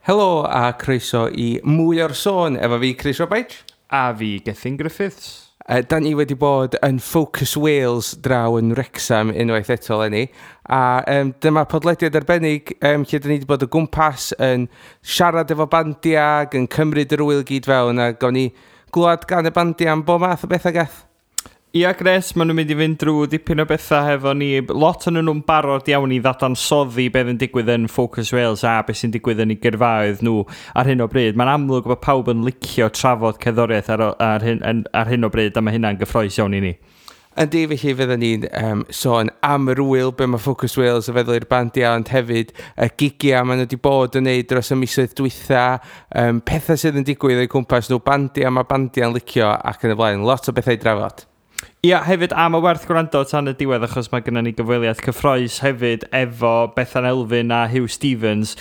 Helo a croeso i Mwy o'r Sôn efo fi, Chris Robaich. A fi, Gethin Griffiths. Da ni wedi bod yn Focus Wales draw yn Wrexham unwaith eto eleni. A dyma podlediad arbennig lle da ni wedi bod o gwmpas yn siarad efo bandiau ac yn cymryd yr ŵyl gyd fewn, a gawn ni glwad gan y bandiau am bob math o bethau, Geth. Ia, Gres, maen nhw'n mynd i fynd drwy dipyn o bethau hefo ni. Lot o'n nhw'n barod iawn i ddadansoddi beth yn digwydd yn Focus Wales a beth sy'n digwydd yn eu gyrfaoedd nhw ar hyn o bryd. Mae'n amlwg bod pawb yn licio trafod cerddoriaeth ar hyn o bryd, a mae hynna'n gyffrous iawn i ni. Yndi, felly fydden ni'n sôn am yr ŵyl, be mae Focus Wales yn feddwl i'r bandiau, ond hefyd y gigiau maen nhw wedi bod yn neud dros y misoedd dwytha, pethau sydd yn digwydd o'i cwmpas nhw, bandiau mae bandiau'n licio ac yn y blaen. Lot o bethau i drafod. Ia, hefyd am y werth gwrando tan y diwedd, achos mae gennym ni gyfweliad cyffrous hefyd efo Bethan Elfyn a Huw Stephens.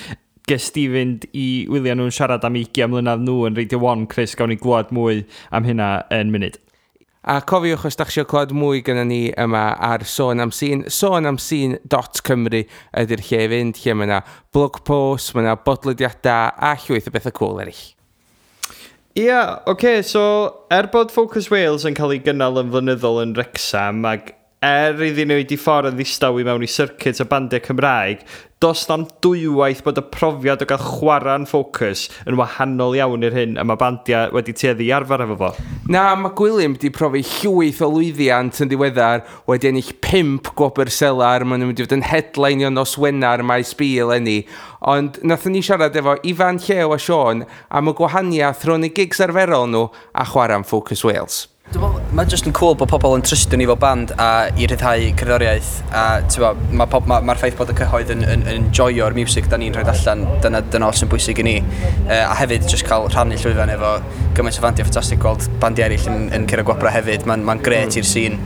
Ges di fynd i wylio nhw'n siarad am 20 mlynedd nhw yn Radio 1, Chris, gawn ni glwad mwy am hynna yn munud. A cofiwch, os da chi eisiau clywed mwy gyda ni yma ar Sôn am Sîn, sonamsîn.cymru ydy'r lle i fynd, lle mae yna blog post, mae yna bodlediadau a llwyth o bethau cool eraill. Ia, oce, so er bod Focus Wales yn cael ei gynnal yn flynyddol yn Wrexham, ac er iddyn nhw wedi ffordd yn ddistaw i mewn i circuit y bandiau Cymraeg, does na'm dwywaith bod y profiad o gael chwarae'n Focus yn wahanol iawn i'r hyn a mae bandiau wedi tueddu i arfer efo fo. Na, mae Gwilym wedi profi llwyth o lwyddiant yn ddiweddar, wedi ennill 5 gwobr Selar, maen nhw wedi bod yn headlineio nos Wener Maes B eleni. Ond nathon ni siarad efo Ifan, Llew a Siôn am y gwahaniaeth rhwng y gigs arferol nhw a chwarae'n Focus Wales. Dwi'n meddwl, mae jyst yn cool bod pobl yn trystio ni fel band a i rhyddhau cerddoriaeth, a mae'r ma, ma, ma ffaith bod y cyhoedd yn enjoyo'r music da ni'n rhoi allan, dyna oll sy'n bwysig i ni. A hefyd jyst cael rhannu llwyfan efo gymaint o fandiau ffantastig, gweld bandiau eraill yn curo gwobrau hefyd, mae'n ma grêt i'r sîn.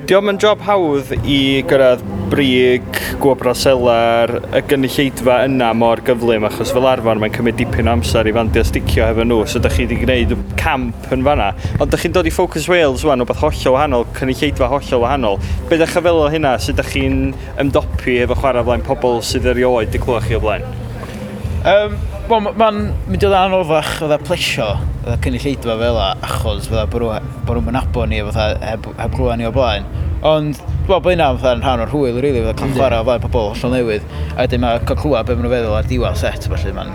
Dio'm yn job hawdd i gyrraedd brig, gwobrau Selar, y gynulleidfa yna mor gyflym, achos fel arfer mae'n cymryd dipyn o amser i fandiau sticio hefo nhw, so da chi wedi gwneud camp yn fanna. Ond da chi'n dod i Focus Wales wan, wbeth hollol wahanol, cynulleidfa hollol wahanol. Be da chi fel o hynna, sut da chi'n ymdopi efo chwarae flaen pobl sydd erioed wedi clywed chi o blaen? Wel, mae'n mynd i ddod anoddach fatha plesio fatha cynulleidfa fel 'a, achos fatha bod nhw'n nabod ni fatha heb glywed ni o blaen. Ond dwi'n meddwl bod hynna fatha yn rhan o'r hwyl, really, fatha cael chwarae o flaen pobl hollol newydd. A wedyn mae cael clywed be maen nhw'n feddwl ar diwedd set, felly mae'n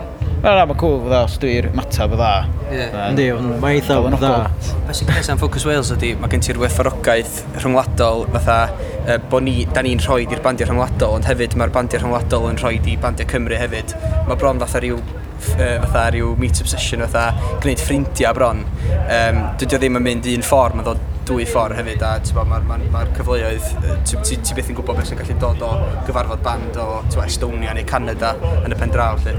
cool fatha os dwi'n matab dda. Yndi, mae'n eitha dda. Be sy'n grêt am Focus Wales ydy, mae gen ti'r werthfawrogaeth rhyngwladol, fatha bod ni, da ni'n rhoi i'r bandiau rhyngwladol, ond hefyd mae'r bandiau rhyngwladol yn rhoi i bandiau Cymru hefyd. Mae bron fatha rhyw meet-up session, fatha gwneud ffrindiau bron. Dydy o ddim yn mynd un ffordd, mae'n dod dwy ffordd hefyd, a mae'r ma cyfleoedd, ti byth yn gwybod beth sy'n gallu dod o gyfarfod band o t'bo, Estonia neu Canada yn y pen draw. Lle.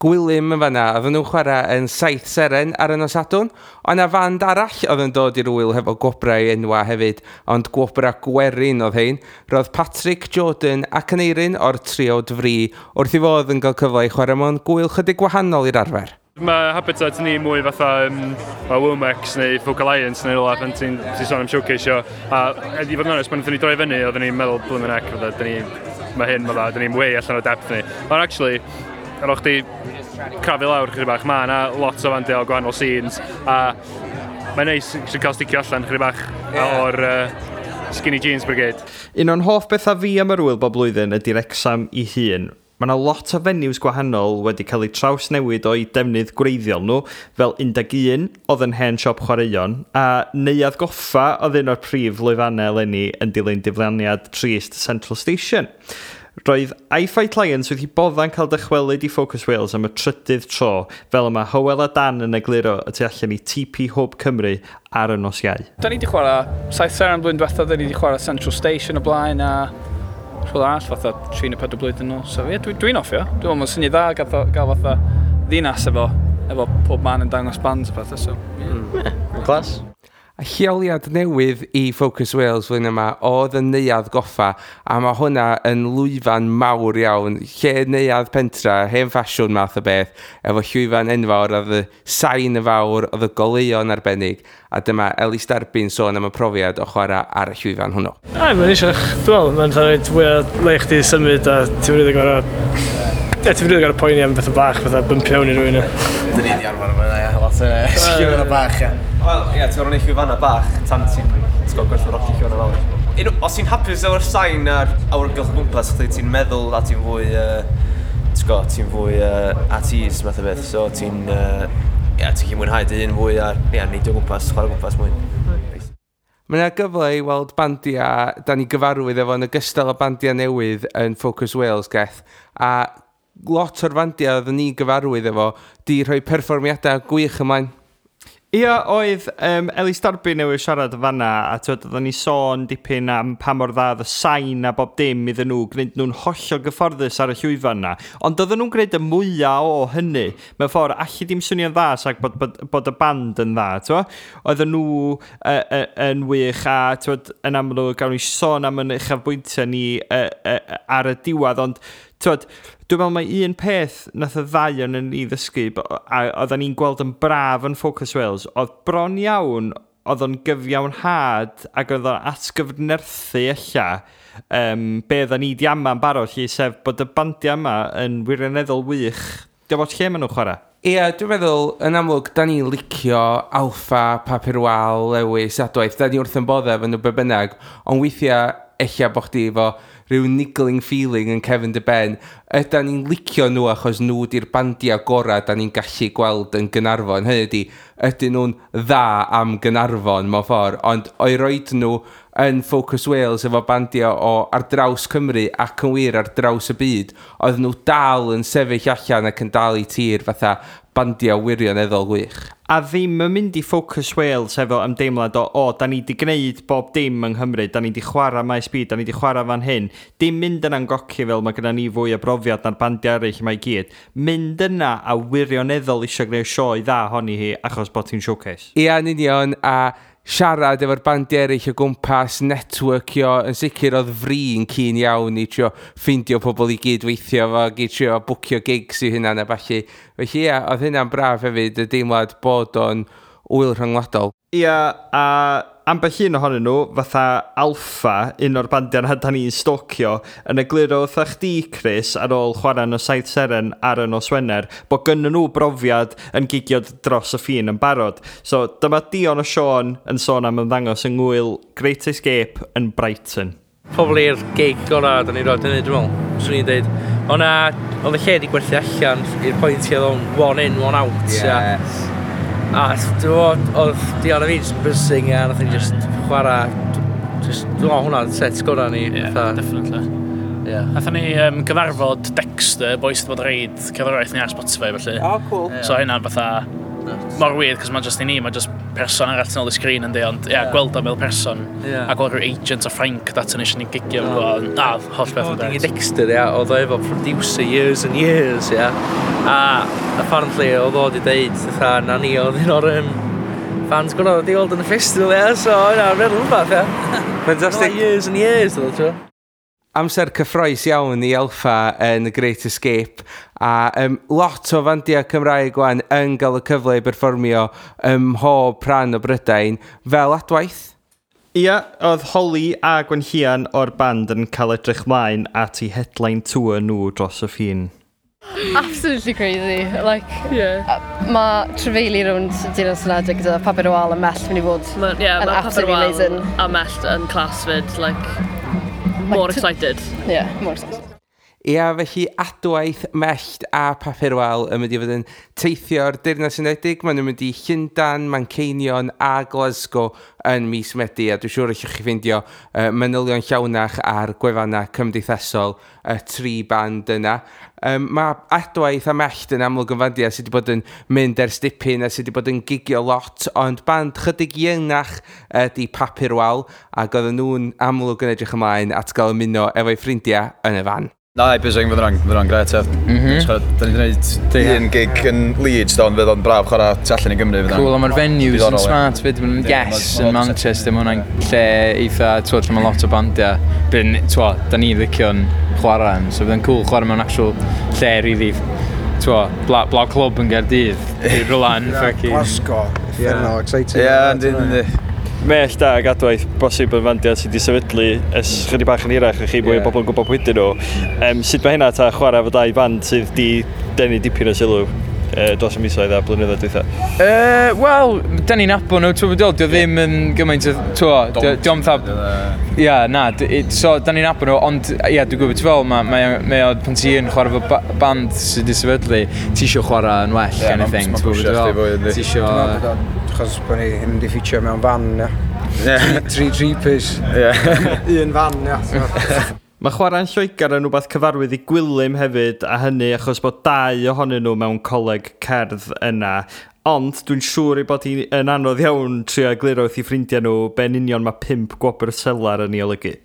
Gwilym yn fanna, oedden nhw'n chwarae yn Saith Seren ar y nos Sadwrn. Ond na fand arall oedd yn dod i'r ŵyl hefo gwobrau enwa hefyd, ond gwobrau gwerin oedd hein. Roedd Patrick, Jordan ac Aneirin o'r triawd Fri wrth i fodd yn cael cyfle i chwarae mewn gwyl chydig gwahanol i'r arfer. Mae habitat ni mwy fatha Womex neu Folk Alliance neu rhywle pan ti sôn am showcase-io. A i fod yn onest, pan wnaethon ni droi fyny, oedden ni'n meddwl, blymyn heck, fatha, dyn ni, mae hyn, fatha, dyn ni'n way allan o depth ni. Ond actually, ar ôl chdi crafu lawr chydig bach, mae yna lot o fandiau o gwahanol scenes, a mae'n neis sy'n cael sticio allan chydig bach o'r skinny jeans brigade. Un o'n hoff bethau fi am yr ŵyl bob blwyddyn ydy Wrexham i hun. Mae yna lot o venues gwahanol wedi cael eu trawsnewid o'i defnydd gwreiddiol nhw, fel 11 oedd yn hen siop chwaraeon, a Neuadd Goffa oedd un o'r prif lwyfannau eleni yn dilyn diflaniad trist Central Station. Roedd I Fight Lions wedi bodda'n cael dychwelyd i Focus Wales am y trydydd tro, fel yma Hywel a Dan yn egluro y tu allan i TP Hwb Cymru ar y nos Iau. Da ni wedi chwarae Saith Seren blwyddyn diwethaf, da ni wedi chwarae Central Station o blaen a rhywle arall fatha 3 neu 4 blwyddyn nôl. So ie, dwi'n hoffi o. Dwi'n meddwl mae'n syniad dda gael fatha ddinas efo pob man yn dangos bands a pethau. So, yeah. Class. A lleoliad newydd i Focus Wales flwyddyn yma oedd y Neuadd Goffa, a mae hwnna yn lwyfan mawr iawn, lle neuadd pentra, hen ffasiwn math o beth, efo llwyfan enfawr, oedd y sain y fawr, oedd y goleuon arbennig, a dyma Elis Darby'n sôn am y profiad o chwarae ar y llwyfan hwnnw. Ai, mae'n eisiau, dwi'n meddwl, mae'n rhaid fwy o le i chdi symud a ti'n rili gorau Ie, ti'n rili gorfod poeni am bethau bach, fatha bumpio mewn i rywun. Dyn ni wedi arfer efo hynna, ie, lot o llwyfanna bach, ie. Wel, ie, ti'n gorfod neud llwyfanna bach tan ti'n gwybod, gwerthfawrogi llwyfanna fawr. Os ti'n hapus efo'r sain a'r awyrgylch o gwmpas chdi, ti'n meddwl a ti'n fwy, ti'n gwybod, ti'n fwy at ease math o beth, so ti'n, ie, ti'n gallu mwynhau dy hun fwy a, ie, neidio o gwmpas, chwarae o gwmpas mwy. Mae yna gyfle i weld bandiau da ni gyfarwydd efo yn ogystal â bandiau newydd yn Focus Wales, Geth. A lot o'r bandiau oedden ni gyfarwydd efo di rhoi perfformiadau gwych ymlaen. Ia, oedd Elis Darby newydd siarad fanna, a twyd, oedden ni sôn dipyn am pa mor dda oedd y sain a bob dim iddyn nhw, gwneud nhw'n hollol gyfforddus ar y llwyfan na. Ond oedden nhw'n gwneud y mwyaf o hynny. Mewn ffordd, allu dim swnio'n dda sag bod y band yn dda, twyd. Oedden nhw yn wych a twyd, yn amlwg, gawn ni sôn am yn uchafbwyntiau ni ar y diwedd, ond twyd, dwi'n meddwl mai un peth nath y ddau o'n ni ddysgu, a oedden ni'n gweld yn braf yn Focus Wales, oedd bron iawn, oedd o'n gyfiawnhad ac oedd o'n atgyfnerthu ella be oedden ni di ama'n barod, lle, sef bod y bandiau yma yn wirioneddol wych. Diolch bod lle maen nhw'n chwarae. Ie, dwi'n meddwl, yn amlwg, da ni'n licio Alffa, Papur Wal, Lewis, Adwaith, da ni wrth yn bodde efo nhw be bynnag, ond weithiau ella bo chdi efo rhyw niggling feeling yn cefn dy ben, ydan ni'n licio nhw achos nhw di'r bandiau gorau da ni'n gallu gweld yn Gaernarfon. Hynny ydi, ydyn nhw'n dda am Gaernarfon mewn ffordd, ond o'i roed nhw yn Focus Wales efo bandiau o ar draws Cymru ac yn wir ar draws y byd, oedd nhw dal yn sefyll allan ac yn dal i tir fatha bandiau wirioneddol gwych. A ddim yn mynd i Focus Wales efo ymdeimlad o, da ni di gwneud bob dim yng Nghymru, da ni di chwarae Maes B, da ni di chwarae fan hyn. Dim mynd yna'n goci fel mae gyda ni fwy o brofiad na'r bandiau eraill yma i gyd. Mynd yna a wirioneddol eisiau gwneud sioe dda honni hi achos bod hi'n showcase. Ia, yn union, a siarad efo'r bandiau eraill o gwmpas, networkio, yn sicr oedd fri'n keen iawn i trio ffeindio pobl i gyd weithio fo, i trio bwcio gigs i hynna a ballu. Felly ia, oedd hynna'n braf hefyd, y deimlad bod o'n ŵyl rhyngwladol. Ia, a ambell un ohonyn nhw, fatha Alffa, un o'r bandiau na da ni'n stalkio, yn egluro wrtha chdi, Chris, ar ôl chwarae yn y Saith Seren ar y nos Wener, bod gynnon nhw brofiad yn gigio dros y ffin yn barod. So dyma Dion a Siôn yn sôn am ymddangos yng ngwyl Great Escape yn Brighton. Probably'r gig gorau da ni roed hynny, dwi'n meddwl. Swn i'n dweud. O'na, oedd y lle di gwerthu allan i'r pwynt lle oedd o'n one in, one out. Yes. A dwi'n meddwl, oedd Dion a fi just buzzing, a nath ni just chwarae, just, dwi'n meddwl hwnna'n set gorau ni. Yeah, fatha. Definitely. Yeah. Nathon ni gyfarfod Dexter, boys sydd bod reid cerddoriaeth ni ar Spotify, felly. Oh, cool. So hynna'n fatha, mor weird, cos mae'n just i ni, mae'n just person arall tu ôl i sgrin yndi, ond ia, gweld o fel person, a gweld rhyw agent o Ffrainc dat yn eisiau ni gigio, mm. A, holl beth yn Ding beth. Dexter, ia, oedd o efo producer years and years, ia. A apparently oedd o wedi deud, fatha, na ni oedd un o'r fans gorau wedi weld yn y festival, ia, so yna, meddwl rhywbeth, ia. Fantastic. Years and years, oedd o, ti'n Amser cyffroes iawn i Alffa yn The Great Escape a lot o fandiau Cymraeg wan yn gael y cyfle i berfformio ym mhob rhan o Brydain fel Adwaith. Ia, oedd Holly a Gwenllian o'r band yn cael edrych mlaen at ei headline tour nhw dros y ffin. Absolutely crazy. Like, mae trafeili rownd Deyrnas Unedig gyda Papur Wal a Mellt mynd i fod Ma, yeah, yn mae Papur absolutely Wal amazing. a Mellt yn class fyd, like, more excited. Yeah, more excited. Ia, felly Adwaith, Mellt a Papur Wal yn mynd i fod yn teithio'r Deyrnas Unedig. Maen nhw'n mynd i Llundain, Manceinion a Glasgow yn mis Medi, a dwi'n siŵr allwch chi ffeindio manylion llawnach ar gwefannau cymdeithasol y tri band yna. Mae Adwaith a Mellt yn amlwg yn fandiau sydd wedi bod yn mynd ers dipyn a sydd wedi bod yn gigio lot, ond band chydig iengach ydy Papur Wal, ac oedden nhw'n amlwg yn edrych ymlaen at gael ymuno efo'i ffrindiau yn y fan. Na, buzzing, fydd hwnna'n gret, ie. Da ni wedi gwneud un gig yn Leeds, do, ond fydd o'n braf chwarae tu allan i Gymru. Fydd o'n Cool, a mae'r venues yn diddorol, ie. smart fyd, maen nhw'n Yndi, Yes yn ma' lot o Manchester, mae hwnna'n lle eitha, t'wod, lle mae lot o bandiau. Byn, t'wod, da ni'n licio'n chwarae yn, so fydd yn cool chwarae mewn actual lle really, t'wod, bla clwb yn Gaerdydd, i rhywle yn fucking. Glasgow, uffernol exciting. Ie, yndi, yndi. Mellt ag Adwaith bosib yn fandiau sydd wedi sefydlu ers chydig bach yn hirach a chi mwy o bobl yn gwybod pwy ydyn nhw. Sut mae hynna ta chwarae efo dau band sydd wedi denu dipyn o sylw dros y misoedd a blynyddoedd dwytha? Wel, da ni'n nabod nhw, ti'n gwybod, dio ddim yn gymaint o, ti'n gwybod, dio fatha... Ia, na, so da ni'n nabod nhw, ond ia, dwi'n gwybod, ti'n fel, mae o, pan ti yn chwarae efo band sydd wedi sefydlu, ti isio chwarae yn well, kind of thing, ti'n gwybod, fwy, yndi. Ti isio... Dwi'n meddwl bod o, achos bod ni ddim wedi ffitio mewn fan, ia. Tri three-piece. Un fan, ia. Mae chwarae'n Lloegr yn rhywbeth cyfarwydd i Gwilym hefyd, a hynny achos bod dau ohonyn nhw mewn coleg cerdd yna. Ond dwi'n siŵr ei bod hi'n yn anodd iawn trio egluro wrth i ffrindiau nhw be'n union mae 5 gwobr selar yn ei olygu.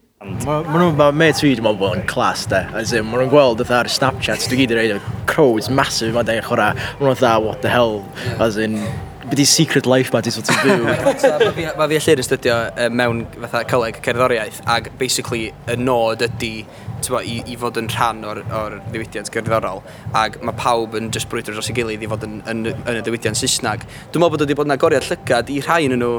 Ma' nhw, ma' mates fi, dwi'n meddwl bod yn class, de. As in, ma' nhw'n gweld fatha ar Snapchat, dwi gyd yn rhaid crowds massive ma'n dweud chwarae. Ma' nhw'n fatha, what the hell, as in, be di secret life ma di sort of byw. So, ma' fi a Llyr yn astudio mewn fatha coleg cerddoriaeth, ac basically y nod ydy t'bo, i fod yn rhan o'r ddiwydiant gerddorol, ac mae pawb yn just brwydro dros ei gilydd i fod yn y diwydiant Saesneg. Dwi'n meddwl bod wedi bod yn agoriad llygad i rhai yn nhw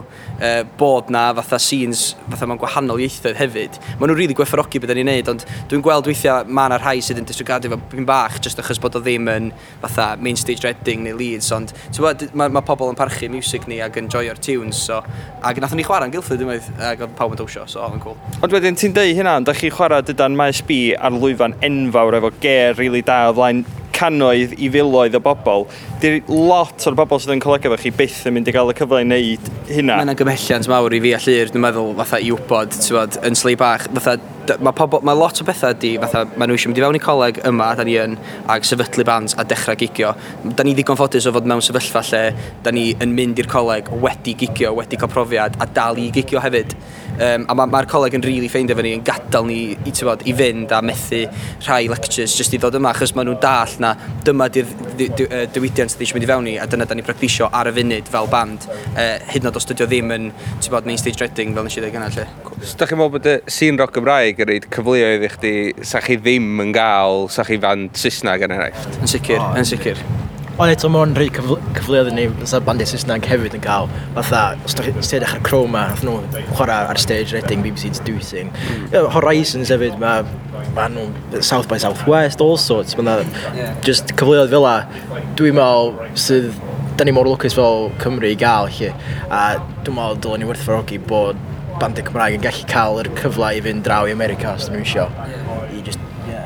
bod na fatha scenes fatha mewn gwahanol ieithoedd hefyd. Maen nhw'n rili gwerthfawrogi beth da ni'n neud, ond dwi'n gweld weithiau mae yna rhai sydd yn disregardio fo pyn bach just achos bod o ddim yn fatha main stage Reading neu Leeds, ond ti'n mae ma pobl yn parchu music ni ac yn joio'r tunes, so, ac nathon ni chwarae yn Guildford unwaith, ac oedd pawb yn dawnsio, so oedd yn cool. Ond wedyn ti'n deud hynna, ond da chi chwarae dydan Maes B ar lwyfan enfawr efo ger rili da o flaen cannoedd i filoedd o bobl. Di'r lot o'r bobl sydd yn colega efo chi byth yn mynd i gael y cyfle i wneud hynna. Mae'n gymhelliant mawr i fi a Llyr, dwi'n meddwl, fatha i wybod, ti'n bod, yn slei bach, fatha, mae pobl, mae lot o bethau di, fatha, maen nhw eisiau mynd i fewn i coleg yma, da ni yn, ag sefydlu bands a dechrau gigio. Da ni ddigon ffodus o fod mewn sefyllfa lle da ni yn mynd i'r coleg wedi gigio, wedi cael profiad, a dal i gigio hefyd. A mae'r ma coleg yn really ffeindio efo ni, yn gadael ni i, ti'n bod, i fynd a methu rhai lectures jyst i ddod yma, achos maen nhw'n dall na dyma di'r diwydiant sydd eisiau mynd i fewn i, a dyna da ni'n practisio ar y funud fel band, hyd yn oed os dydy o ddim yn, ti'n bod, main stage Reading, fel nes i ddweud gynna, lle. So, da chi'n meddwl bod y scene rock Gymraeg yn rhoid cyfleoedd i chdi sa chi ddim yn gael, sa chi fan Saesneg yn enghraifft? Yn sicr, yn sicr. Ond eto mae o'n rhoi cyfleoedd i ni, fatha bandiau Saesneg hefyd yn cael, fatha, os ti'n edrych ar Chroma, nath nhw chwarae ar stage Reading, BBC To Do Thing. Yeah, Horizons hefyd, mae ma nhw South by Southwest, all sorts, mae 'na just cyfleoedd fel la, dwi'n meddwl sydd, da ni mor lwcus fel Cymru i gael, lle, a dwi'n meddwl dylen ni werthfawrogi bod bandiau Cymraeg yn gallu cael yr cyfle i fynd draw i America os dyn nhw isio. I just, yeah.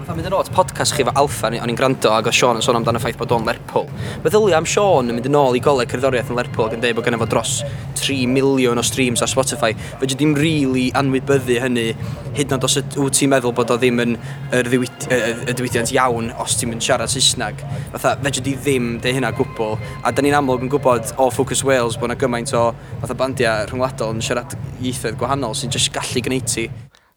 Fatha mynd yn ôl at podcast chi efo Alffa, o'n i'n gwrando ac oedd Sean yn sôn amdano y ffaith bod o'n Lerpwl. Meddylia am Sean yn mynd yn ôl i goleg cerddoriaeth yn Lerpwl ac yn dweud bod gynno fo dros 3 miliwn o streams ar Spotify. Fedri di'm really anwybyddu hynny, hyd yn oed os wyt ti'n meddwl bod o ddim yn y diwydiant iawn os ti'n mynd siarad Saesneg. Fatha, fedri di ddim deud hynna gwbl. A da ni'n amlwg yn gwybod o Focus Wales bod yna gymaint o fatha bandiau rhyngwladol yn siarad ieithoedd gwahanol sy'n jyst gallu gwneud ti.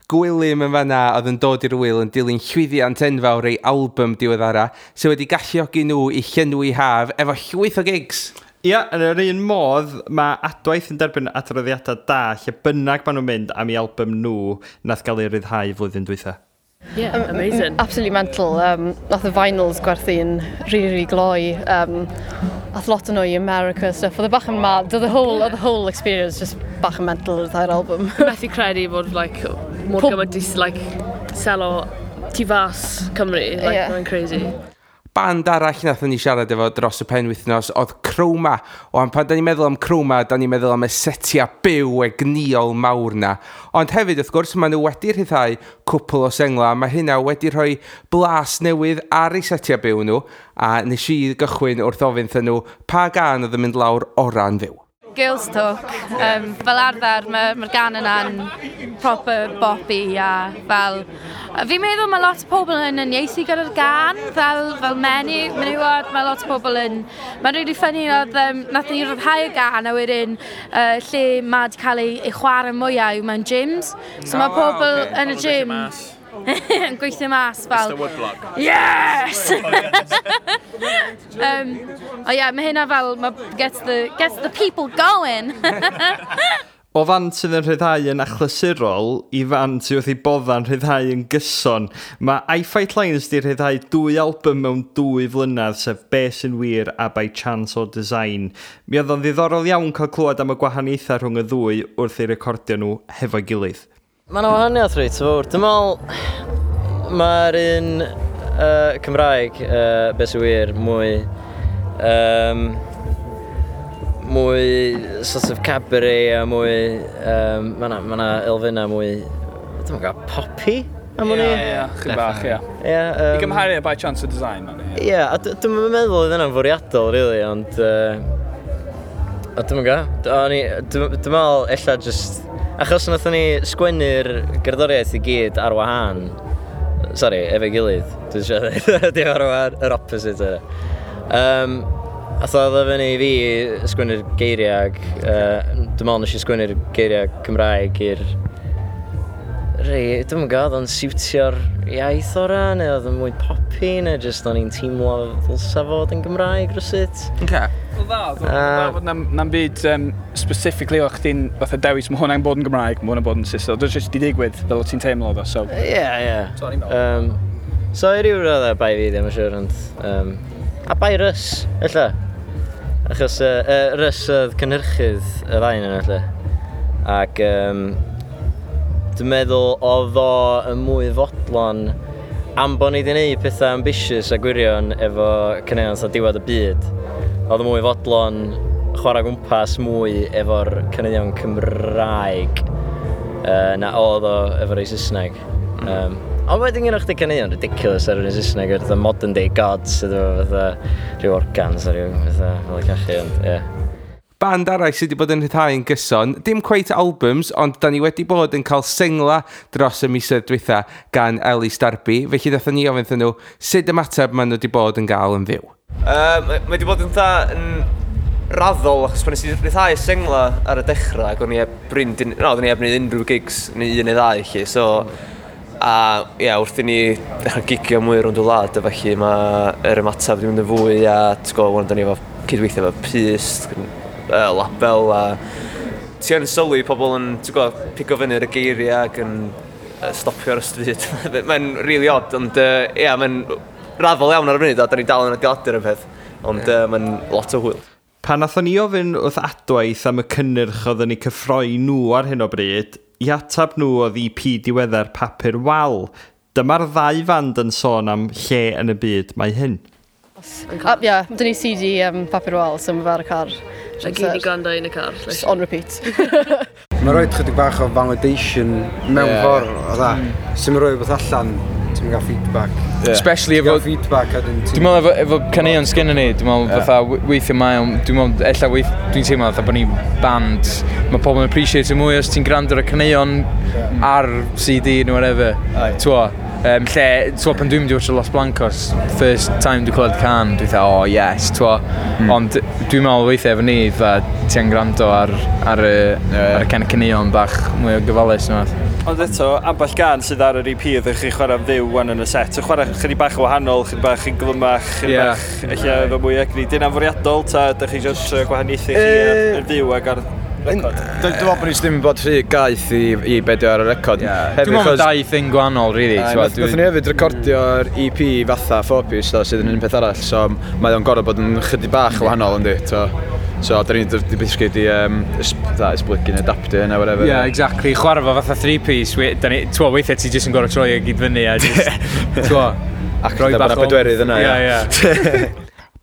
Gwilym yn fanna oedd yn dod i'r wyl yn dilyn llwyddiant enfawr ei album diweddara sydd wedi galluogi nhw i llenwi haf efo llwyth o gigs. Ia, yn yr un modd, mae Adwaith yn derbyn adroddiadau da lle bynnag maen nhw'n mynd am ei album nhw nath gael ei ryddhau flwyddyn dwytha. Yeah, amazing. Absolutely mental. Nath y vinyls gwerthu'n really, really gloi. Ath lot o nhw i America a stuff. Oedd e bach yn mad. Oedd the whole experience just bach yn mental yr entire album. Methu credu bod like, mor gymaint i like, selo tu fas Cymru. Like, mae'n crazy. Band arall nathon ni siarad efo dros y penwythnos oedd Chroma. O, am pan da ni'n meddwl am Chroma, da ni'n meddwl am y setiau byw egnïol mawr na. Ond hefyd, wrth gwrs, maen nhw wedi rhyddhau cwpl o sengla. Mae hynna wedi rhoi blas newydd ar eu setiau byw nhw. A nes i gychwyn wrth ofyn wrthyn nhw pa gan oedd yn mynd lawr ora'n fyw. Girls Talk. Fel arfer, mae'r ma gan yna'n proper boppy a fel... Fi'n meddwl mae lot o pobl yn uniaethu gyda'r gan, fel menywod, mae lot o pobl yn... Mae'n really funny, oedd, nath ni ryddhau y gan a wedyn lle mae wedi cael ei chwarae mwyaf yw mewn gyms. So mae pobl yn y gym yn gweithio mas fel... Mr Woodblock. Yes! O ie, mae hynna fel, ma gets the people going. O fand sydd yn rhyddhau yn achlysurol i fand sydd wrth ei bodda'n rhyddhau yn gyson, mae I Fight Lions di rhyddhau 2 album mewn 2 flynedd, sef Be Sy'n Wir a By Chance or Design. Mi oedd o'n ddiddorol iawn cael clywed am y gwahaniaethau rhwng y ddwy wrth eu recordio nhw hefo'i gilydd. Mae yna wahaniaeth reit fawr. Dwi'n meddwl mae'r un Cymraeg, Be Sy'n Wir, mwy sort of cabaret a mwy, mae yna elfennau mwy, dwi'n gwybod, poppy am hwnni? Ie, chydig bach, ie. Ie, I gymharu â By Chance or Design, man. Ie, a dwi'm yn meddwl oedd hynna'n fwriadol, really, ond a dwi'm yn gwybod. Dwi'n meddwl ella just, achos nathon ni sgwennu'r gerddoriaeth i gyd ar wahân, sorry, efo'i gilydd, dwi'n siarad dweud, dim ar wahân, yr opposite yna. A oedd o fyny i fi sgwennu'r geiriau, dwi'n meddwl nes i sgwennu'r geiriau Cymraeg i'r rei, dwi'm yn gwybod, oedd o'n siwtio'r iaith ora, neu oedd o'n mwy poppy, neu jyst o'n i'n teimlo ddylsa fod yn Gymraeg rywsut. Okay. Wel dda, oedd o'n dda fod na'm byd specifically o chdi'n fatha dewis, mae hwnna'n bod yn Gymraeg, mae hwnna'n bod yn Saesneg. Oedd o'n jyst di digwydd fel o ti'n teimlo oedd o, so. Ie, ie. So o'n i'n meddwl. So i ryw raddau bai fi ddim yn siŵr, ond a bai Russ, ella. Achos Russ oedd cynhyrchydd y ddau yn ella. Ac dwi'n meddwl oedd o yn mwy fodlon am bod ni wedi gwneud pethau ambitious a gwirion efo caneuon fatha Diwedd y Byd. Oedd o mwy fodlon chwarae gwmpas mwy efo'r caneuon Cymraeg na oedd o efo'r ei Saesneg. Ond wedyn gyda chdi caneuon ridiculous ar yr un Saesneg, fatha Modern Day Gods, sydd efo fatha rhyw organs a rhyw fatha fel y cachu, ond ie. Band arall sydd wedi bod yn rhyddhau yn gyson, dim quite albums, ond da ni wedi bod yn cael sengla dros y misoedd dwytha gan Elis Darby, felly ddathon ni ofyn iddyn nhw sut ymateb maen nhw wedi bod yn gael yn fyw. Mae wedi bod yn dda yn raddol, achos pan nes i rhyddhau sengla ar y dechrau, ac o'n i heb brin, no, oedden ni heb wneud unrhyw gigs, neu un neu ddau, lle, so a ie, wrth i ni ddechrau gigio mwy rownd y wlad, a felly mae'r ymateb wedi mynd yn fwy, a ti'n gwybod, wan da ni efo cydweithio efo Pyst, label, a ti yn sylwi pobl yn, ti'n gwybod, pigo fyny ar y geiriau ac yn stopio ar y stryd. Mae'n really odd, ond ie, mae'n raddol iawn ar y funud, a da ni dal yn adeiladu'r peth, ond mae'n lot o hwyl. Pan nathon ni ofyn wrth Adwaith am y cynnyrch oedden ni cyffroi nhw ar hyn o bryd, i atab nhw oedd EP diweddar Papur Wal. Dyma'r ddau fand yn sôn am lle yn y byd mae hyn. Ie, dyn ni CD Papur Wal, so mae fe ar y car. A gyd i gwrando yn y car. Just on repeat. Mae'n rhoi chydig bach o validation mewn ffordd, o dda. Sy'n rhoi beth allan, ti'n gael feedback. Especially efo feedback a dyn Dwi'n meddwl efo caneuon sgynnon ni, dwi'n meddwl fatha weithio mae o'n, dwi'n meddwl ella dwi'n teimlo fatha bod ni'n band, mae pobl yn appreciate mwy os ti'n gwrando ar y caneuon ar CD neu whatever. T'wo, lle, t'wo, pan dwi'n mynd i watch Los Blancos, first time dwi'n clywed can, dwi'n dweud, oh yes, t'wo. Ond dwi'n meddwl weithiau efo ni, fatha ti'n gwrando ar y caneuon bach mwy o gyfalus neu fath. Ond eto, ambell gan sydd ar yr EP ydych chi chwarae'n fyw wan yn y set. Ti'n chwarae chydig bach o wahanol, chydig bach yn glyfnach, chydig bach ella efo mwy egni. Di hynna'n fwriadol, ta ydych chi jyst gwahaniaethu chi ar fyw ac ar record? Dwi'n meddwl bod ni ddim yn bod rhy gaeth i be dio ar y record. Dwi'n meddwl dau thing gwahanol, really. Nathon ni hefyd recordio'r EP fatha 4-piece, sydd yn un peth arall, so mae o'n gorfod bod yn chydig bach o wahanol, yndi. So, da ni'n basically di esblygu neu adaptio hynna, whatever. Yeah, exactly. Chwarae fo fatha 3-piece, t'wo, weithiau ti jyst yn gorfod troi e gyd fyny a jyst, t'wo, Ac rhoi bach o bedwerydd yna, ie.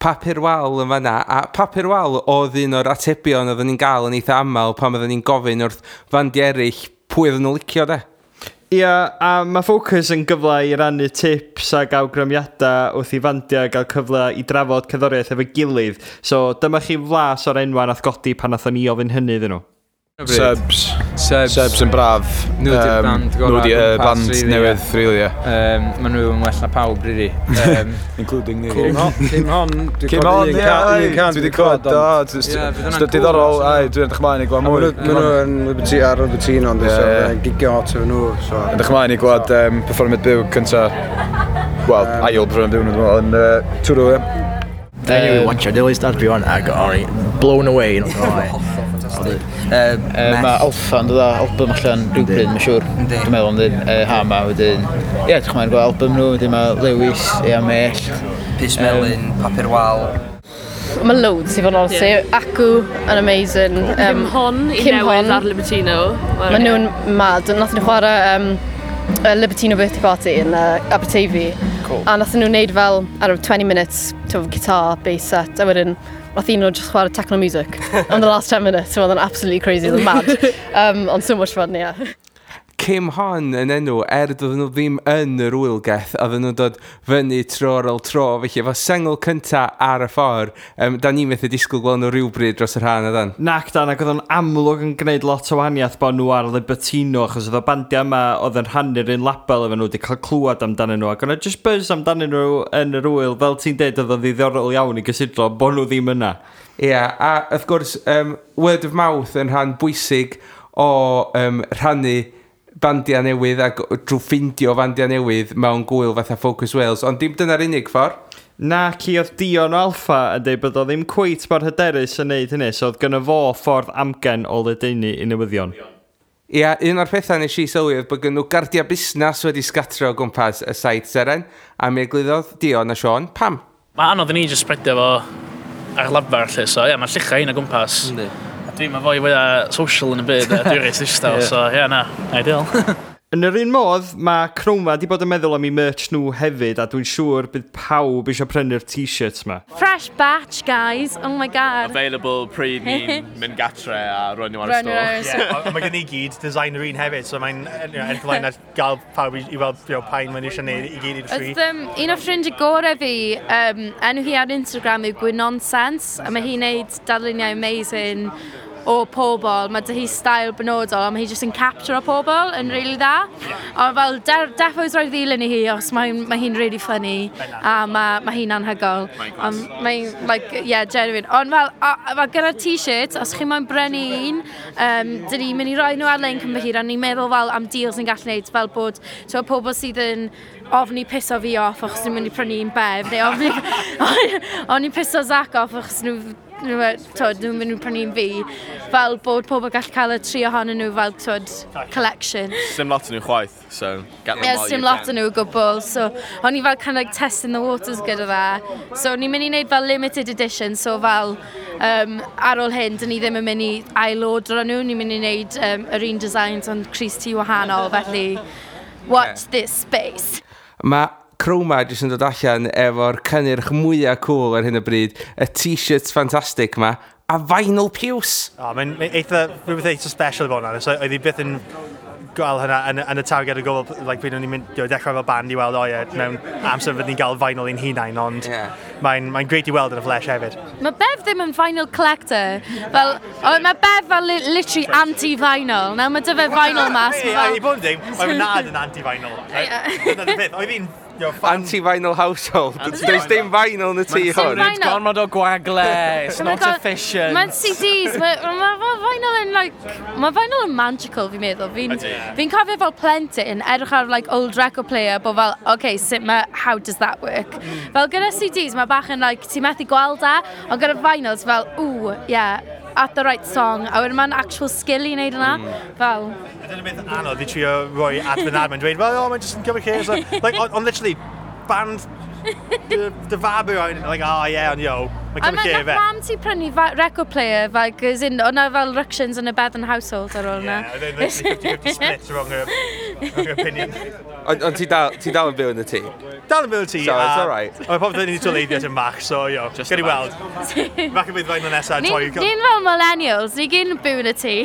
Papur Wal yn fanna, a Papur Wal oedd un o'r atebion oedden ni'n gael yn eitha aml pan oedden ni'n gofyn wrth fandiau eraill pwy oedden nhw'n licio, de. Ia, a mae Focus yn gyfle i rannu tips ac awgrymiadau wrth i fandiau gael cyfle i drafod cerddoriaeth efo'i gilydd. So dyma chi flas o'r enwa nath godi pan nathon ni ofyn hynny iddyn nhw. Subs. Subs yn braf. Nhw di'r band gorau. Nhw di'r band newydd, really, ie. Maen nhw yn well na pawb, really. Including ni. Cym hon, dwi'n clywed un can. Dwi wedi clywed, do. Dwi'n diddorol, ai, dwi'n edrych mlaen i gweld mwy. Maen nhw yn Liberty, ar Libertino, ond dwi'n gigio hot efo nhw. Edrych mlaen i gweld perfformiad byw cynta, wel, ail perfformiad byw nhw, dwi'n meddwl, yn Twrw, ie. Anyway, watch your Elis Darby on, I got blown away, not gonna lie. Ffantastig. Mae Alpha yn dod â album allan rhywbryd, mae'n siŵr. Dwi'n meddwl, yn ha ma wedyn. Ie, edrych mlaen gweld album nhw, wedyn mae Lewis, Ea Mellt. Pys Melyn, Papur Wal. Mae loads i fod yn honest. Yeah. Acw yn amazing. Kim Hon i Kim newydd Hon. ar Libertino. Mae nhw'n mad. Nath nhw chwarae Libertino Birthday Party yn Aberteifi. Cool. A nath nhw wneud fel, I don't know, 20 minutes to guitar bass set. A wedyn, nath un nhw just chwarae techno music. On the last 10 minutes, so oedd yn absolutely crazy, oedd yn mad. Ond so much fun, yeah. Kim Hon yn enw, doedden nhw ddim yn yr wylgeth, oedden nhw'n dod fyny tro ar ôl tro, felly efo sengl cynta ar y ffordd, da ni'n methu disgwyl gweld nhw rhywbryd dros yr han, ydan? Nac dan, ac oedd o'n amlwg yn gwneud lot o wahaniaeth bod nhw ar Libertino, achos oedd y bandiau yma oedd yn rhannu'r un label efo nhw wedi cael clywed amdanyn nhw, ac oedd just buzz amdanyn nhw yn yr wyl, fel ti'n deud, oedd o'n ddiddorol iawn i gysidro bod nhw ddim yna. Ie, yeah, a wrth gwrs, word of mouth yn rhan bwysig o rhannu bandiau newydd ac drwy ffindio bandiau newydd mewn gwyl fatha Focus Wales, ond dim dyna'r unig ffordd. Na, ci oedd Dion o Alpha yn dweud bod o ddim cweit mor hyderus yn neud hynny, so oedd gynno fo ffordd amgen o ledaenu i newyddion. Ia, un o'r pethau nes i sylwi oedd bod gen nhw gardia busnes wedi sgatro o gwmpas y Saith Seren, a mi eglurodd Dion a Sean pam. Mae anodd i ni just spreadio fo ar lafar, lle, so ie, yeah, mae lluchau un o gwmpas. Yndi. A dwi'n fwy fwyaf social yn y byd, a dwi'n reit ddistaw, so ie, yeah, na, ideal. Yn yr un modd, mae Chroma di bod yn meddwl am eu merch nhw hefyd, a dwi'n siŵr bydd pawb eisiau prynu'r t-shirts ma. Fresh batch, guys. Oh my god. Available pryd ni'n mynd gatre a roi nhw ar y Roi nhw ar y store. store. Yeah, mae gen i gyd designer un hefyd, so mae'n edrych ymlaen at gael pawb i weld pa un maen nhw eisiau gwneud i gyd i'r tri. Oedd un o ffrindiau gorau fi, enw hi ar Instagram yw Gwynonsense, a mae hi'n neud darluniau amazing o pobl. Mae dy hi style benodol, a mae hi jyst yn capture o pobl yn really dda. Ond fel, defos roi ddilyn i hi, os mae hi'n really funny, a mae hi'n anhygoel. Ond mae'n, like, yeah, genuine. Ond fel, a gyda'r t-shirt, os chi moyn brynu un, dyn ni'n mynd i roi nhw ar-lein cyn bo hir, a ni'n meddwl fel am deals ni'n gallu gwneud, fel bod, ti'n pobl sydd yn ofni piso fi off achos nhw'n mynd i prynu un Bev, neu ofni piso Zach off achos nhw'n mynd i prynu un fi, fel bod pobl gallu cael y tri ohonyn nhw fel, twyd, collection. Sim lot yn nhw chwaith, so get them Yeah, while dim you lot can. yn nhw o gwbl, so o'n i fel kind of like testing the waters gyda fe. So o'n i'n mynd i wneud fel limited edition, so fel ar ôl hyn, dyn ni ddim yn mynd i ail-ordro nhw, ni'n mynd i wneud yr un designs ond crys T wahanol, felly watch this space. Mae Chroma jyst yn dod allan efo'r cynnyrch mwyaf cool ar hyn o bryd, y t-shirts ffantastig ma, a vinyl piws. O, mae'n eitha, rhywbeth eitha special i fod yn so oedd hi byth yn gweld hynna yn y target o gofal, like, pryd o'n i'n mynd, dechrau fel band i weld, o ie, mewn amser fydd ni'n gael vinyl i'n hunain, ond mae'n great i weld yn y flesh hefyd. Mae Bev ddim yn vinyl collector. Fel, mae Bev fel literally anti-vinyl. Nawr mae dy fe vinyl mas. Ei, I bod yn deg, mae fy nad yn anti-vinyl. Dyna'r peth, oedd hi'n Anti-vinyl household. Does dim vinyl yn y tŷ hwn. Vinyl. Gormod o gwagle, it's Oh my not God. efficient. Mae'n CDs, mae vinyl yn like, mae vinyl yn magical fi'n meddwl. Fi'n Ydi. fi cofio fel plentyn edrych ar like old record player bod fel, okay, sut mae, how does that work? Fel gyda CDs mae bach yn like, ti'n methu gweld e, ond gyda vinyls fel, ooh, yeah, at the right song, a wedyn mae'n actual skill i wneud yna. Fel, Dyna'r beth anodd i trio roi at fy nad, mae'n dweud, well, oh, mae'n just yn cymryd lle. So, like, on literally, band dy fab yw, like, oh yeah, ond yo, mae'n A cymryd mae lle nath fe. mam ti prynu record player, fel, as in, o'na fel ructions yn y Bevan household ar ôl yna. Yeah, oedd e'n literally 50-50 split rhwng yr opinion. Ond ti dal yn byw yn y tŷ? Dal yn byw yn y tŷ. So, it's alright. Mae popeth yn ei toleiddio yn bach, so, yo, gen i weld. Bach yn bydd fain o nesaf, toi. Ni'n fel millennials, ni gyd yn byw yn y tŷ.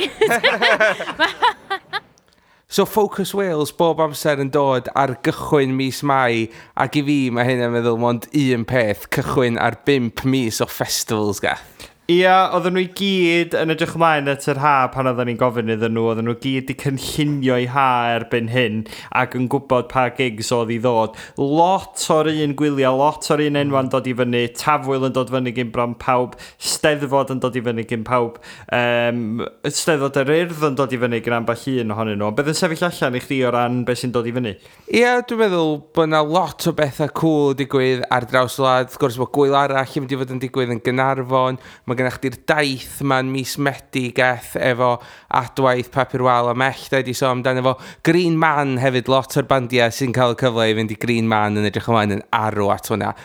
So Focus Wales bob amser yn dod ar gychwyn mis Mai, ac i fi mae hyn yn meddwl mond un peth, cychwyn ar 5 mis o festivals gath. Ia, oedden nhw i gyd yn edrych ymlaen at yr ha pan oedden ni'n gofyn iddyn nhw, oedden nhw gyd 'di cynllunio i ha erbyn hyn ac yn gwybod pa gigs oedd i ddod. Lot o'r un gwyliau, lot o'r un enwa'n dod i fyny, Tafwyl yn dod fyny gyn bron pawb, Steddfod yn dod i fyny gyn pawb, Steddfod yr Urdd yn dod i fyny gyn ambell un ohonyn nhw. Ond beth yn sefyll allan i chdi o ran beth sy'n dod i fyny? Ie, dwi'n meddwl bod yna lot o bethau cool digwydd ar draws y wlad. Wrth gwrs, mae gwyl arall yn mynd i fod yn digwydd yn Gaernarfon. Mae Mae gennych chdi'r daith ma'n mis Medi geth efo Adwaith, Papur Wal a Mellt wedi sôn amdano fo. Green Man hefyd, lot o'r bandiau sy'n cael y cyfle i fynd i Green Man yn edrych ymlaen yn arw at hwnna.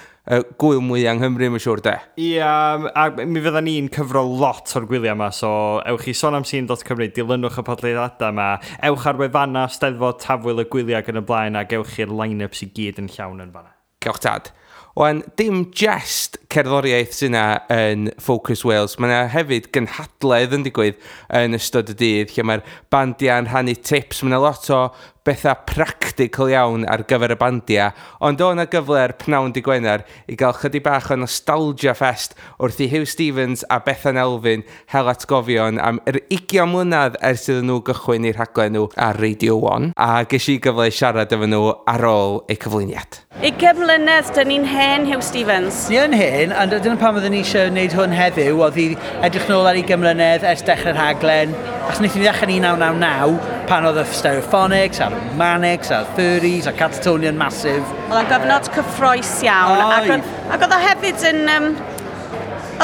Gwyl mwy yng Nghymru, mae'n siŵr de. Ia, a mi fydda ni'n cyfro lot o'r gwyliau yma, so ewch i sonamscene.cymru, dilynwch y podlediadau yma, ewch ar wefannau Steddfod, Tafwyl y gwyliau ac yn y blaen, ac ewch i'r line-ups i gyd yn llawn yn fanna. Gewch tad. Wan, dim just cerddoriaeth sy'n yna yn Focus Wales, mae yna hefyd gynhadledd yn digwydd yn ystod y dydd, lle mae'r bandiau yn rhannu tips, mae yna lot o bethau practical iawn ar gyfer y bandiau, ond o yna gyfle ar pnawn dy Gwener i gael chydig bach o nostalgia fest wrth i Huw Stephens a Bethan Elfyn hel atgofion am yr 20 mlynedd ers iddyn nhw gychwyn eu rhaglen nhw ar Radio 1, a ges i gyfle i siarad efo nhw ar ôl eu cyflwyniad. 20 mlynedd, dyn ni'n hen, Huw Stephens. Ni yn hen, a dyna pam oedden ni eisiau gwneud hwn heddiw, oedd i edrych nôl ar 20 mlynedd ers dechrau'r rhaglen, achos wnaethon ni ddechrau yn 1999, pan oedd y Stereophonics, a'r Manics, a'r Furries, a'r Catatonia'n massive. Oedd o'n gyfnod cyffrous iawn. Oedd. Ac oedd o hefyd yn...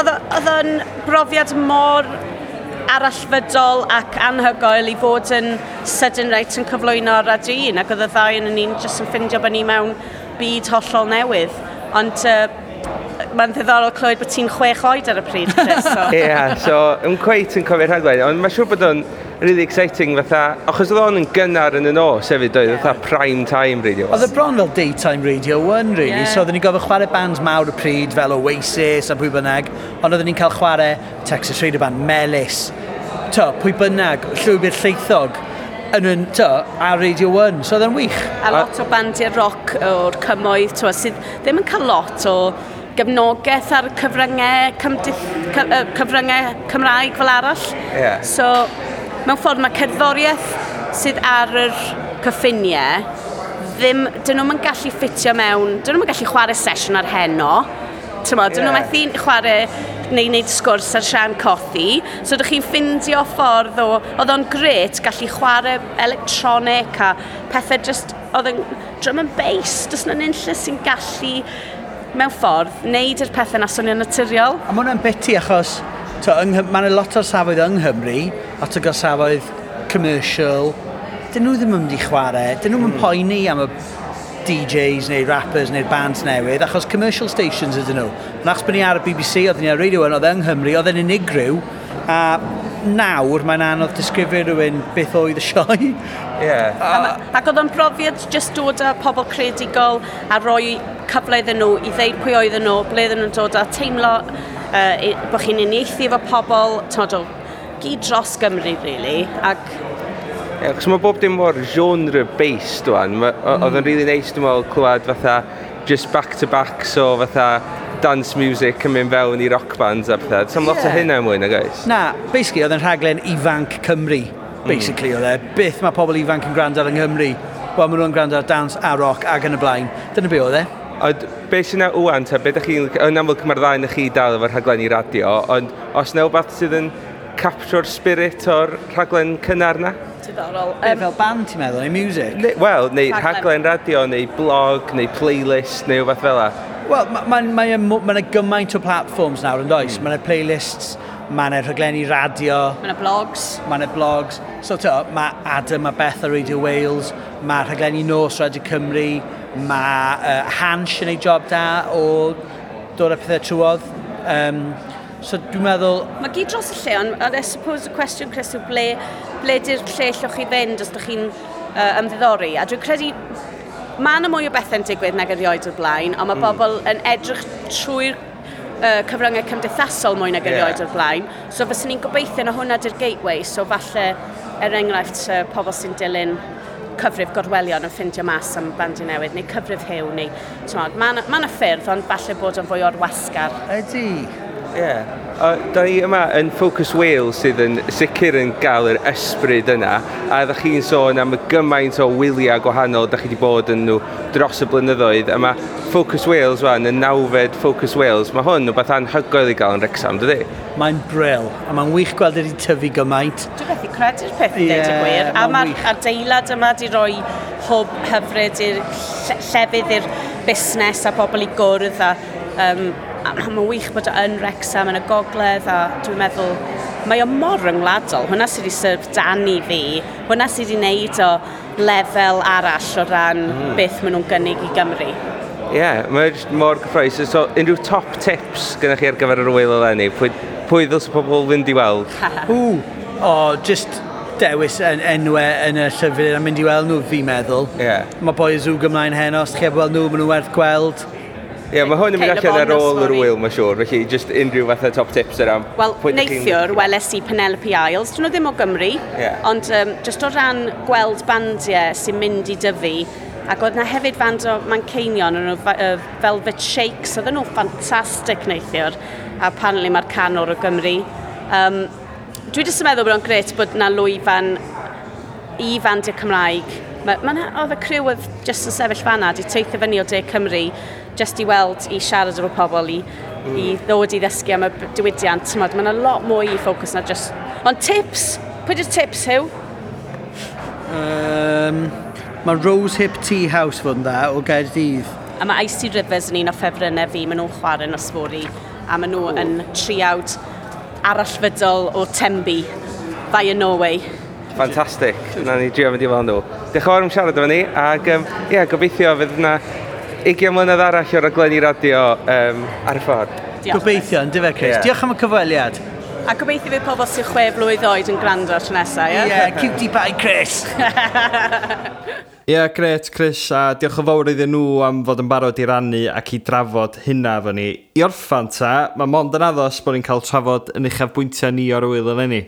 Oedd o'n brofiad mor arallfydol ac anhygoel i fod yn sydyn reit yn cyflwyno ar Radio 1, ac oedd y ddau yn ni'n jyst yn ffindio bod ni mewn byd hollol newydd. Ond mae'n ddiddorol clywed bod ti'n 6 oed ar y pryd, Chris. So. Ie, yeah, so yn cweit yn cofio'r rhaglen, ond mae'n siŵr bod o'n really exciting fatha, achos oedd o'n yn gynnar yn y nos hefyd, oedd fatha prime time radio. Oedd y bron fel daytime Radio 1, really. Yeah. So oedden ni'n gofio chwarae bands mawr y pryd fel Oasis a pwy bynnag, ond oedden ni'n cael chwarae Texas Radio Band, Melys, to, pwy bynnag, Llwybr Llaethog, yn, to, ar Radio 1, so oedd yn wych. A lot o bandiau roc o'r cymoedd, twa, sydd ddim yn cael lot o gefnogaeth ar cyfryngau, cyfryngau Cymraeg fel arall. Yeah. So, mewn ffordd mae cerddoriaeth sydd ar yr cyffiniau, ddim, dyn nhw'm yn gallu ffitio mewn, dyn nhw'm yn gallu chwarae sesiwn ar heno. T'mod, dyn nhw methu chwarae neu wneud sgwrs ar Sian Cothi. So dych chi'n ffindio ffordd o... Oedd o'n gret gallu chwarae electronic a pethau just... Oedd yn drum and bass, does na nunlle sy'n gallu mewn ffordd wneud yr pethau na swnio'n naturiol. A mae hwnna'n biti achos to, mae yna lot o'r safoedd yng Nghymru, lot o gorsafoedd commercial, dyn nhw ddim yn mynd i chwarae, dyn nhw'n mm. poeni am y DJs neu rappers neu'r bands newydd, achos commercial stations ydyn nhw. Ond achos bod ni ar y BBC, oedden ni ar Radio 1, oedd yng Nghymru, oedd yn unigryw, a nawr mae'n anodd disgrifio rhywun beth oedd y sioe. Yeah. Ac oedd o'n brofiad just dod â pobl creadigol a rhoi cyfle iddyn nhw i ddeud pwy oedden nhw, ble oedden nhw'n dod a teimlo bod chi'n uniaethu efo pobl, t'mod, o gyd dros Gymru, really. Ac Ie, achos mae bob dim mor genre-based wan. Oedd o'n really nice, dwi'n meddwl, clywed fatha just back-to-back, so fatha dance music yn mynd fewn i rock bands a pethau. Does 'am lot o hynna mwy, nag oes? Na, basically oedd yn rhaglen ifanc Cymru. Basically oedd e. Beth mae pobl ifanc yn gwrando ar yng Nghymru? Wel, maen nhw'n gwrando ar dance a rock ac yn y blaen. Dyna be oedd e. Ond be sy'n na ŵan, ta, be dych chi'n... Yn amlwg mae'r ddau na chi dal efo'r rhaglenni radio, ond os na wbath sydd yn capture'r spirit o'r rhaglen cynnar na? Diddorol. Be, fel band ti'n meddwl, neu music? Wel, neu rhaglen radio, neu blog, neu playlist, neu wbath fel 'a. Wel, mae ma yna gymaint o platforms nawr yn does? Mae yna playlists, mae yna rhaglenni radio. Mae yna blogs. Mae yna blogs. So, to, mae Adam a Beth ar Radio Wales, mae rhaglenni nos Radio Cymru, mae Hansh yn ei job da o dod â pethau trwodd. So dwi'n meddwl... Mae gyd dros y lle, ond I suppose y cwestiwn, Chris, yw ble di'r lle llwch chi fynd os ydych chi'n ymddiddori. A dwi'n credu mae yna mwy o bethau'n digwydd nag erioed o'r blaen, ond mae bobl yn edrych trwy'r cyfryngau cymdeithasol mwy nag erioed o'r blaen. So fyswn ni'n gobeithio na hwnna di'r gateway, so falle, er enghraifft, pobl sy'n dilyn cyfrif Gorwelion yn ffindio mas am bandiau newydd, neu cyfrif Huw, neu... Mae yna ffyrdd, ond falle bod yn fwy o'r wasgar. Ydy. Ie. Da ni yma yn Focus Wales sydd yn sicr yn gael yr ysbryd yna, a ddech chi'n sôn am y gymaint o wyliau gwahanol da chi wedi bod yn nhw dros y blynyddoedd, a mae Focus Wales wan, y 9fed Focus Wales, mae hwn rhywbeth anhygoel i gael yn Wrexham, dydy? Mae'n bril, a mae'n wych gweld wedi tyfu gymaint. Dwi'n methu credu'r peth i ddeud y gwir, a mae'r adeilad yma wedi rhoi hwb hyfryd i'r llefydd i'r busnes a pobl i gwrdd a A mae'n wych bod o yn Wrexham yn y gogledd, a dwi'n meddwl, mae o mor ryngwladol. Hwna sydd wedi syfrdanu fi, hwnna sydd wedi wneud o lefel arall o ran beth maen nhw'n gynnig i Gymru. Ie, yeah, mae'n jyst mor gyffrous. So, unrhyw top tips gyda chi ar gyfer yr ŵyl eleni? Pwy ddylse pobl fynd i weld? Ww, o, just dewis yn enwau yn y llyfr a mynd i weld nhw, fi'n meddwl. Yeah. Mae Boy Azooga ymlaen heno, os chi heb weld nhw, maen nhw werth gweld. Ie, yeah, mae hwn yn mynd Cate allan ar Le Bon ôl yr nos fory. ŵyl, mae'n siŵr. Felly, just unrhyw fatha top tips yna. Wel, Pwy dych chi'n- neithiwr, weles i Penelope Isles. Dyn nhw ddim o Gymru, Ie. ond just o ran gweld bandiau sy'n mynd i dyfu, ac oedd na hefyd band o Manceinion, o'n nhw Velvet Shakes, oedden nhw'n ffantastig neithiwr, a apparently mae'r canwr o Gymru. Dwi jyst yn meddwl bod o'n grêt bod na lwyfan i fandiau Cymraeg. Oedd y criw oedd jyst yn sefyll fanna, di teithio fyny o De Cymru, jyst i weld, i siarad efo pobl, i ddod i ddysgu am y diwydiant. T'mod, mae yna lot mwy i ffocws na just... Ond tips! Pwy di'r tips, Huw? Mae Rose Hip Tea House fod yn dda o Gaerdydd. A mae Icy Rivers yn un o ffefrynnau fi, maen nhw'n chwarae nos fory, a maen nhw yn triawd arallfydol o Tenby, via Norway. Fantastic. Na ni drio mynd i weld nhw. Diolch yn fawr am siarad efo ni, ac ie, gobeithio fydd yna 20 mlynedd arall o raglenni radio ar y ffordd. Diolch. Gobeithio, yn dyfe, Chris. Ie. Diolch am y cyfweliad. A gobeithio fydd pobl sy'n 6 blwydd oed yn gwrando tro nesaf, ie? Ie, cutie pie, Chris! Ie, yeah, gret, Chris, a diolch yn fawr iddyn nhw am fod yn barod i rannu ac i drafod hynna efo ni. I orffan ta, mae mond yn addos bod ni'n cael trafod yn uchafbwyntiau ni o'r ŵyl eleni.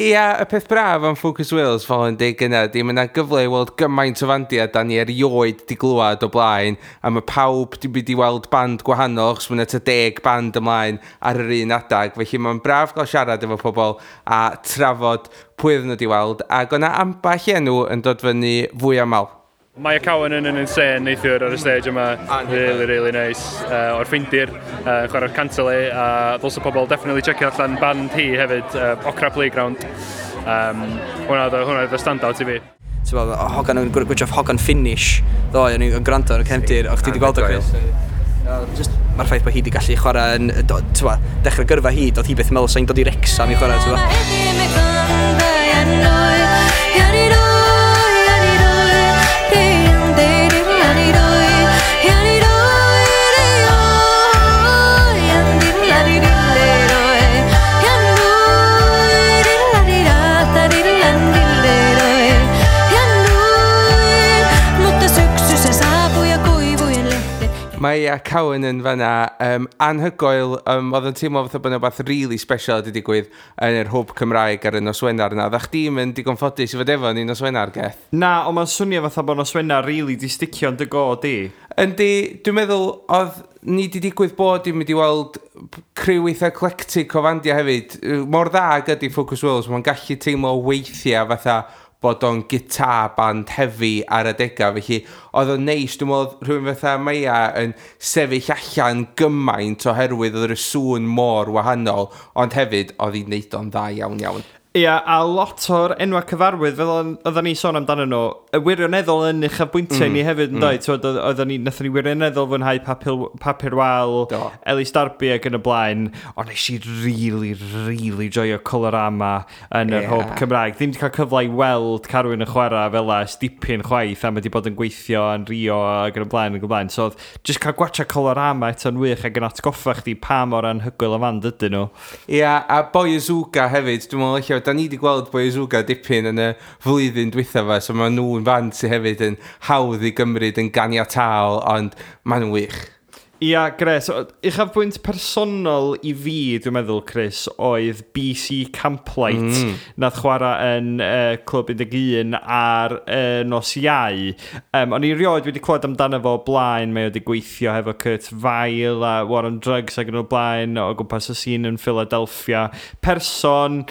Ia, y peth braf am Focus Wales fel yn deud gynna, di mae yna gyfle i weld gymaint o fandiau da ni erioed di glywed o blaen, a mae pawb di mynd i weld band gwahanol, achos mae yna tua 10 band ymlaen ar yr un adag, felly mae'n braf gael siarad efo pobl a trafod pwy oedden nhw di weld, ac o'na ambell enw yn dod fyny fwy aml. Mae Cowan yn insane neithiwr ar y stage yma. Really, really nice. O'r Ffindir, chwarae'r kantele, a ddylse pobl definitely checio allan band hi hefyd, Okra Playground. Hwnna oedd y standout i fi. Ti'n bod, hogan yn gwrdd hogan Finnish ddoe, o'n i'n gwrando ar y cefndir, o'ch ti wedi gweld o, Chris? Just, mae'r ffaith bod hi wedi gallu chwarae yn, ti'n bod, dechrau gyrfa hi, doedd hi byth yn meddwl sa'n dod i Wrexham i chwarae, ti'n bod. Mutta syksy se saapui ja kuivujen lehdet. Mae Ia Cowan yn fanna, anhygoel, oedd yn teimlo fatha bod yna rhywbeth really special wedi digwydd yn yr hwb Cymraeg ar y nos Wener yna. Oeddach chdi'm yn digon ffodus i fod efo ni nos Wener, Geth? Na, ond mae'n swnio fatha bod nos Wener really di sticio yn dy go di. Yndi, dwi'n meddwl oedd ni di digwydd bod i'n mynd i weld criw eitha eclectic o fandiau hefyd. Mor dda ag ydi Focus Wales, mae'n gallu teimlo weithiau fatha bod o'n guitar band heavy ar adegau, felly oedd o'n neis, dwi'n meddwl oedd rhywun fatha Maia yn sefyll allan gymaint oherwydd oedd y sŵn mor wahanol, ond hefyd oedd hi'n neud o'n dda iawn iawn. Ia, a lot o'r enwa cyfarwydd, fel oedden ni sôn amdano nhw, y wirioneddol yn uchafbwyntiau ni hefyd, yn dweud, oedden ni, nathon ni wirioneddol fwynhau Papur Wal, Elis Darby ac yn y blaen, ond nes i really, really joio Colorama yn yr hwb Cymraeg. Ddim wedi cael cyfle i weld Carwyn yn chwarae fel ers dipyn chwaith, a mae wedi bod yn gweithio yn Rio ac yn y blaen, ac yn y blaen. So, oedd just cael gwatcha Colorama eto'n wych ac yn atgoffa chdi pa mor anhygoel y fand ydyn nhw. Ia, a Boy Azooga hefyd, dwi'n meddwl ella, da ni wedi gweld Boy Azooga dipyn yn y flwyddyn dwytha fa, so maen nhw'n fand sydd hefyd yn hawdd i gymryd yn ganiataol, ond maen nhw'n wych. Ia, gres. Uchafbwynt personol i fi, dwi'n meddwl, Chris, oedd BC Camplight, nath chwarae yn Clwb 11 ar nos Iau. O'n i rioed wedi clywed amdano fo o blaen, mae o wedi gweithio hefo Kurt Vile a War on Drugs ac yn o'r blaen o gwmpas y scene yn Philadelphia. Person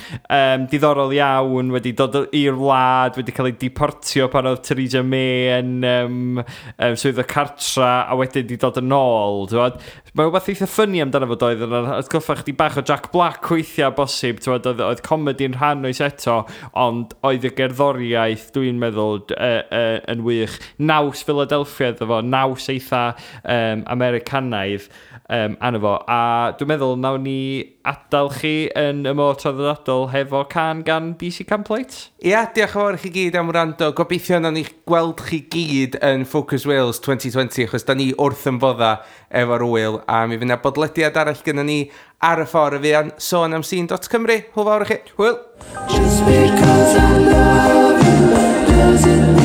diddorol iawn, wedi dod i'r wlad, wedi cael ei deportio pan oedd Theresa May yn swyddfa cartra, a wedyn wedi dod yn ôl. ôl, t'wod. Mae rhywbeth eitha funny amdano fo doedd, yn atgoffa chdi bach o Jack Black weithiau bosib, t'wod, oedd comedy yn rhan o'i set o, ond oedd y gerddoriaeth, dwi'n meddwl, yn wych. Naws Philadelphia iddo fo, naws eitha Americanaidd arno fo. A dwi'n meddwl nawn ni adael chi yn y modd traddodiadol hefo cân gan BC Camplight. Ia, diolch yn fawr i chi gyd am wrando. Gobeithio nawn ni gweld chi gyd yn Focus Wales 2020, achos da ni wrth yn bodda efo'r wyl, a mi fydd yna bodlediad arall gyda ni ar y ffordd y fuan, sôn am scene.cymru. Hwyl fawr i chi. Hwyl! Just because I love you doesn't